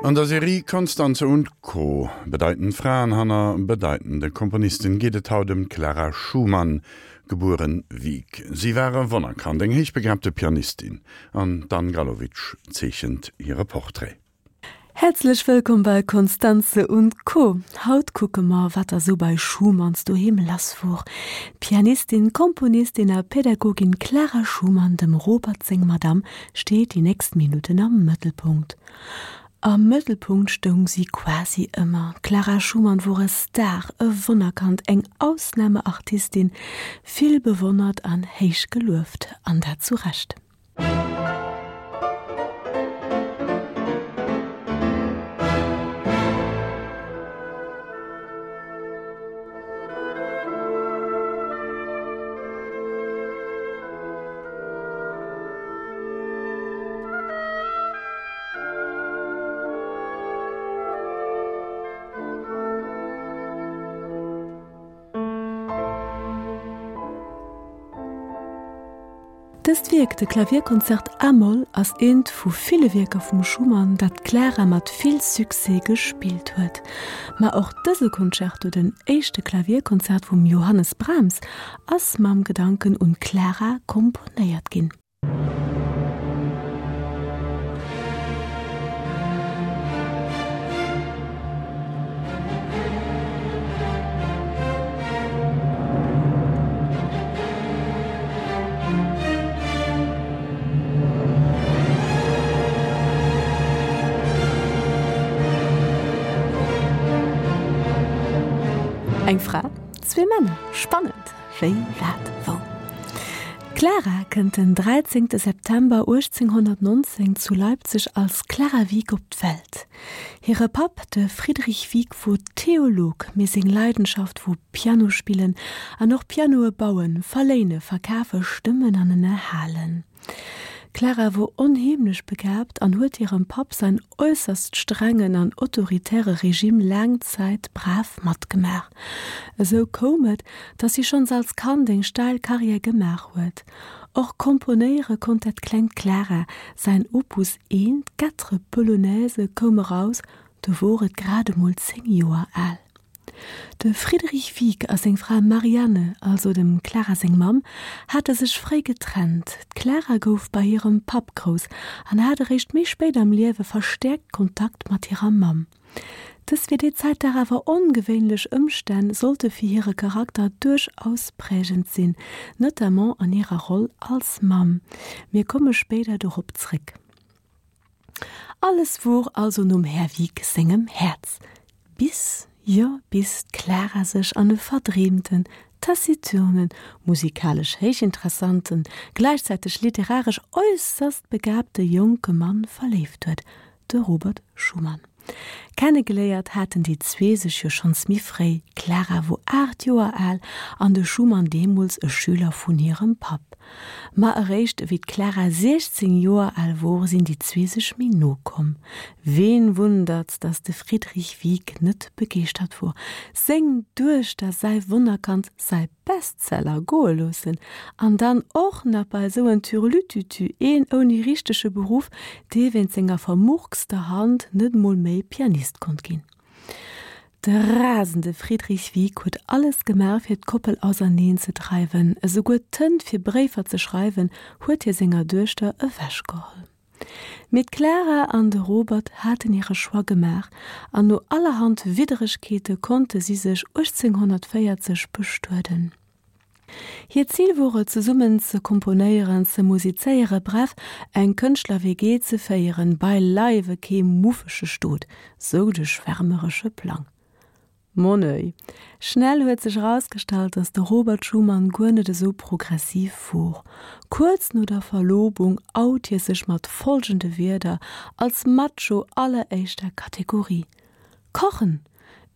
An der Serie Constanze und Co. Bedeitend Fraen hanner bedeitende Komponisten geet et haut ëm d'Clara Schumann, gebueren Wieck. Si war e Wonnerkand, eng héichbegabte Pianistin an d'Anne Galowitsch zeechent hire Portrait. Häerzlech wëllkomm bei Constanze und Co. Haut kucke mer, wat da sou bei Schumanns doheem lass wor. D'Pianistin, Komponistin a Pädagogin Clara Schumann, dem Robert seng Madame, steet déi nächst Minutten am Mëttelpunkt. Am Mëttelpunkt stoung si quasi ëmmer. D'Clara Schumann wor e Star, e Wonnerkand, eng Ausnahmeartistin, vill bewonnert an héich gelueft, an dat zu Recht. Dëst Wierk, de Klavierkonzert a-Moll, ass eent vu ville Wierker vum Schumann, dat d'Clara mat vill Succès gespillt huet. Ma och dëse Concerto, den éischte Klavierkonzert vum Johannes Brahms, ass mam Gedanken un d'Clara komponéiert ginn. Eng Fra, zwee Männer, spannend! Wéi, wat, wou? D'Clara kënnt den 13 September 1819 zu Leipzig als Clara Wieck op d'Welt. Hire Papp, de Friedrich Wieck, wor Theolog, mee seng Leidenschaft wor Piano spillen an och Pianoe bauen, verléine, verkafe, stëmmen an ënnerhalen. D'Clara wor onheemlech begaabt an huet hirem Papp säin äusserst strengen an autoritäre Regime laang Zäit brav matgemaach. Esou koum et, dass si schonns als Kand eng steil Karriär gemaach huet. Och komponéiere konnt dat klengt Clara, säin Opus I, d'Quatre Polonaises, koum eraus, do wor et grad emol 10 Joer al. De Friedrich Wieck a seng Fra Marianne, also dem Clara seng Mamm, hate sech fréi getrennt. D'Clara gouf bei hirem Papp grouss an hat eréischt méi spéit am Liewe verstäerkt Kontakt mat hirer Mamm. Dës fir déi Zäit dach awer ongewéinlech Ëmstänn sollte fir hire Charakter duerchaus prägend sinn, notamment an hirer Roll als Mamm. Mir komme spéider dorop zréck. Alles wor also nom Här Wieck sengem Häerz. Bis, jo bis d'Clara sech an e verdreemten, taciturnen, musikalesch héichinteressanten, gläichzäiteg literaresch äusserst begabte jonke Mann verléift huet, de Robert Schumann. Kennegeléiert haten déi zwee sech jo schonns méi fréi, d'Clara wor 8 Joer al an de Schumann deemools e Schüler vun hirem Papp. Ma eréischt ewéi d'Clara 16 Joer al wor, sinn déi zwee sech méi no komm. Ween wundert's, dass de Friedrich Wieck net begeeschtert wor, seng Duechter, säi Wonnerkand, säi Bestseller goe loossen an dann och nach bei esou en Türlütütü, een ouni richtege Beruff, dee wéint senger vermurkster Hand net mol méi Pianist konnt ginn. De rasende Friedrich Wieck huet alles gemaach fir d'Koppel auserneen ze dreiwen, esouguer d'Tënt fir Bréifer ze schreiwen huet hie senger Duechter ewechgeholl. Mee d'Clara an de Robert haten hire Choix gemaach an no allerhand Widderegkeete konnte si sech 1840 bestueden. Hiert Zil wor et, zesummen ze komponéieren, ze musizéiere, bref, eng Kënschtler-WG ze féieren, beileiwe kee muffege Stot, sou de schwärmeresche Plang. Mon oeil. Schnell huet sech erausgestallt, dass de Robert Schumann guer net esou progressiv wor. Kuerz no der Verlobung out hie sech mat folgende Wierder als Macho alleréischter Kategorie, Kochen!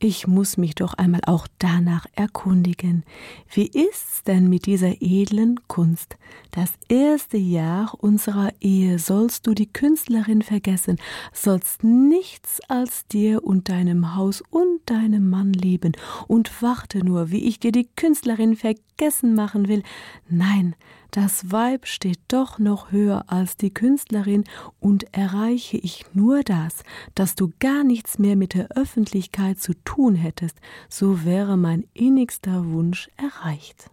Ich muss mich doch einmal auch danach erkundigen. Wie ist's denn mit dieser edlen Kunst? Das erste Jahr unserer Ehe sollst du die Künstlerin vergessen, sollst nichts als dir und deinem Haus und deinem Mann leben und warte nur, wie ich dir die Künstlerin vergessen machen will. Nein, Das Weib steht doch noch höher als die Künstlerin und erreiche ich nur das, dass du gar nichts mehr mit der Öffentlichkeit zu tun hättest, so wäre mein innigster Wunsch erreicht.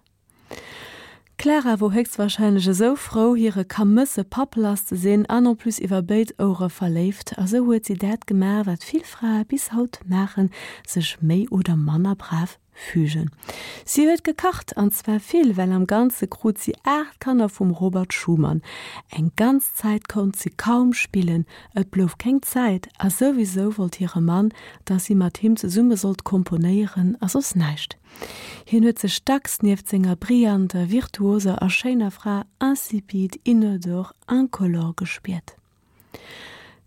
D'Clara wor héchstwahrscheinlech esou frou, hire kamësse Papp lass ze sinn an en plus iwwer béid Ouere verléift, a sou huet si dat gemaach, wat vill Frae bis haut maachen, sech méi oder manner brav fügen. Si huet gekacht, an zwar vill, well am Ganze krut si 8 Kanner vum Robert Schumann. Eng ganz Zäit konnt si kaum spillen, et blouf keng Zäit, a souwisou wollt hire Mann, dass si mat him zesumme sollt komponéieren a soss näischt. Hien huet sech dacks nieft senger brillanter, virtuoser a schéiner Fra insipide, inodore, incolore gespiert.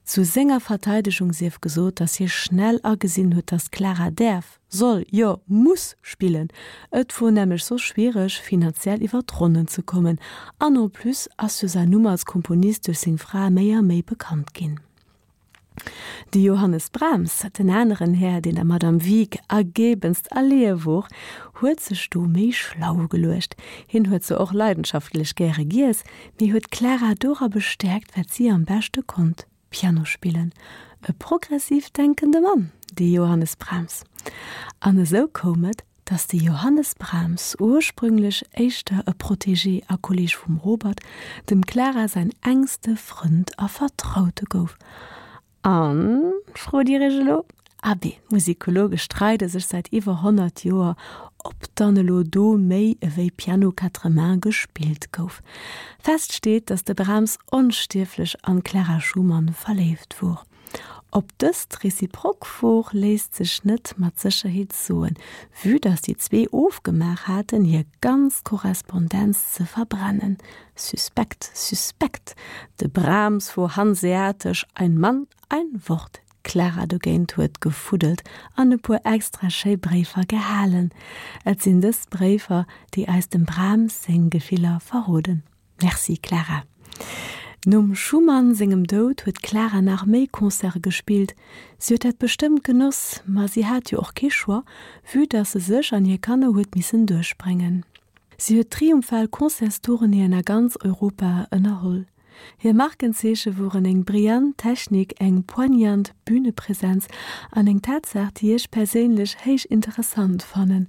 Zu senger Verteidegung sief gesot, datt hie schnell agesinn huet, datt d'Clara däerf, soll, jo muss spillen. Et wor nämlech soss schwiereg, finanziell iwwer d'Ronnen ze kommen. An en plus ass jo säin Numm als Komponist duerch seng Fra méi a méi bekannt ginn. De Johannes Brahms, den aneren Här, deen der Madame Wieck ergebenst erleeë wor, huet sech do méi schlau geluecht. Hien huet zwar och leidenschaftlech gäre giess, mee huet d'Clara dora bestäerkt, wat si am beschte konnt, Piano spillen. E progressiv denkende Mann, dee Johannes Brahms. An esou koum et, datt de Johannes Brahms, ursprünglech éischter e Protégé a Kolleg vum Robert, dem Clara säin engste Frënd a Vertraute gouf. An, frot Dir Iech elo? Abee, d'Musikologe streide sech säit iwwer 100 Joer, ob dann elo do méi ewéi Piano quatre mains gespillt gouf. Fest steet, datt de Brahms onstierflech an d'Clara Schumann verléift wor. Ob dëst reziprok wor, léisst sech net mat Sécherheet soen, vue datt déi zwee ofgemaach haten, hir ganz Korrespondenz ze verbrennen. Suspekt, suspekt! De Brahms wor hanseatesch, ein Mann, ein Wort. D'Clara dogéint huet gefuddelt an e puer extra schéi Bréifer gehalen. Et sinn dës Bréifer, déi eis dem Brahms seng Gefiller verroden. Merci Clara. Nom Schumann sengem Doud huet d'Clara nach méi Concerte gespillt. Si huet dat bestëmmt genoss, ma si hat jo och kee Choix, vue dass se sech an hir Kanner huet missen duerchbréngen. Si huet triumphal Concertstournéeën a ganz Europa ënnerholl. Hir Markenzeeche woren eng brillant Technik, eng poignant Bünepresenz an eng Tatsaach, déi ech perséinlech héich interessant fannen,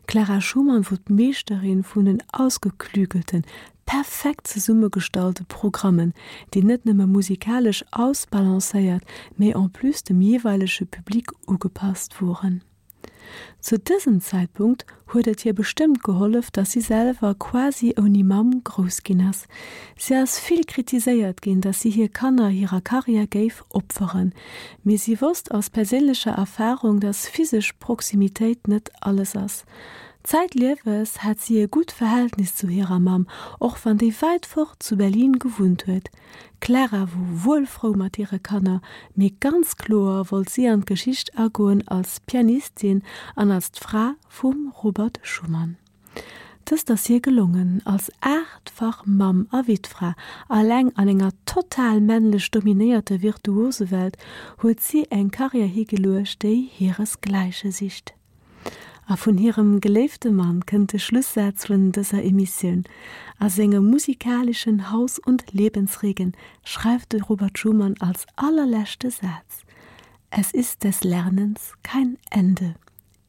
D'Clara Schumann wor d'Meeschterin vun den ausgeklügelten, perfekt zesummegestallte Programmen, déi net nëmme musikalesch ausbalancéiert, mee en plus dem jeeweilege Public ugepasst woren. Zu dësem Zäitpunkt huet et hir bestëmmt gehollef, dass si selwer quasi ouni Mamm grouss ginn ass. Si ass vill kritiséiert ginn, dass si hir Kanner hirer Karriär géif opferen. Mee si wosst aus perséinlecher Erfarung, dass physesch Proximitéit net alles ass. Zäitlieves hat si e gutt Verhältnis zu hirer Mamm, och wann déi wäit fort zu Berlin gewunnt huet. D'Clara wor wuel frou mat hire Kanner, mee ganz kloer wollt si an d'Geschicht agoen als Pianistin an als d'Fra vum Robert Schumann. Dëst ass hir gelongen, als aachtfach Mamm a Wittfra, alleng an enger total männlech dominéierter Virtuosewelt, huet si eng Karriär higeluecht, déi hiresgläiche sicht. A vun hirem geléifte Mann kënnt de Schlussaz vun dëser Emissioun. A sengem musikalischen Haus und Lebensregen schreift de Robert Schumann als allerleschte Saz, Es ist des Lernens kein Ende.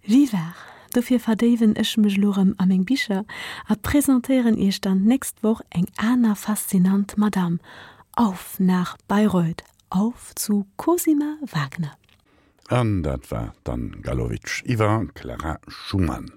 Vivar! Dofir verdéiwen ech mech elo rëm a meng Bicher a presentéieren iech dann d'nächst Woch eng aner faszinant Madame. Auf nach Bayreuth, auf zu Cosima Wagner! An dat war d'Anne Galowitsch iwwer Clara Schumann.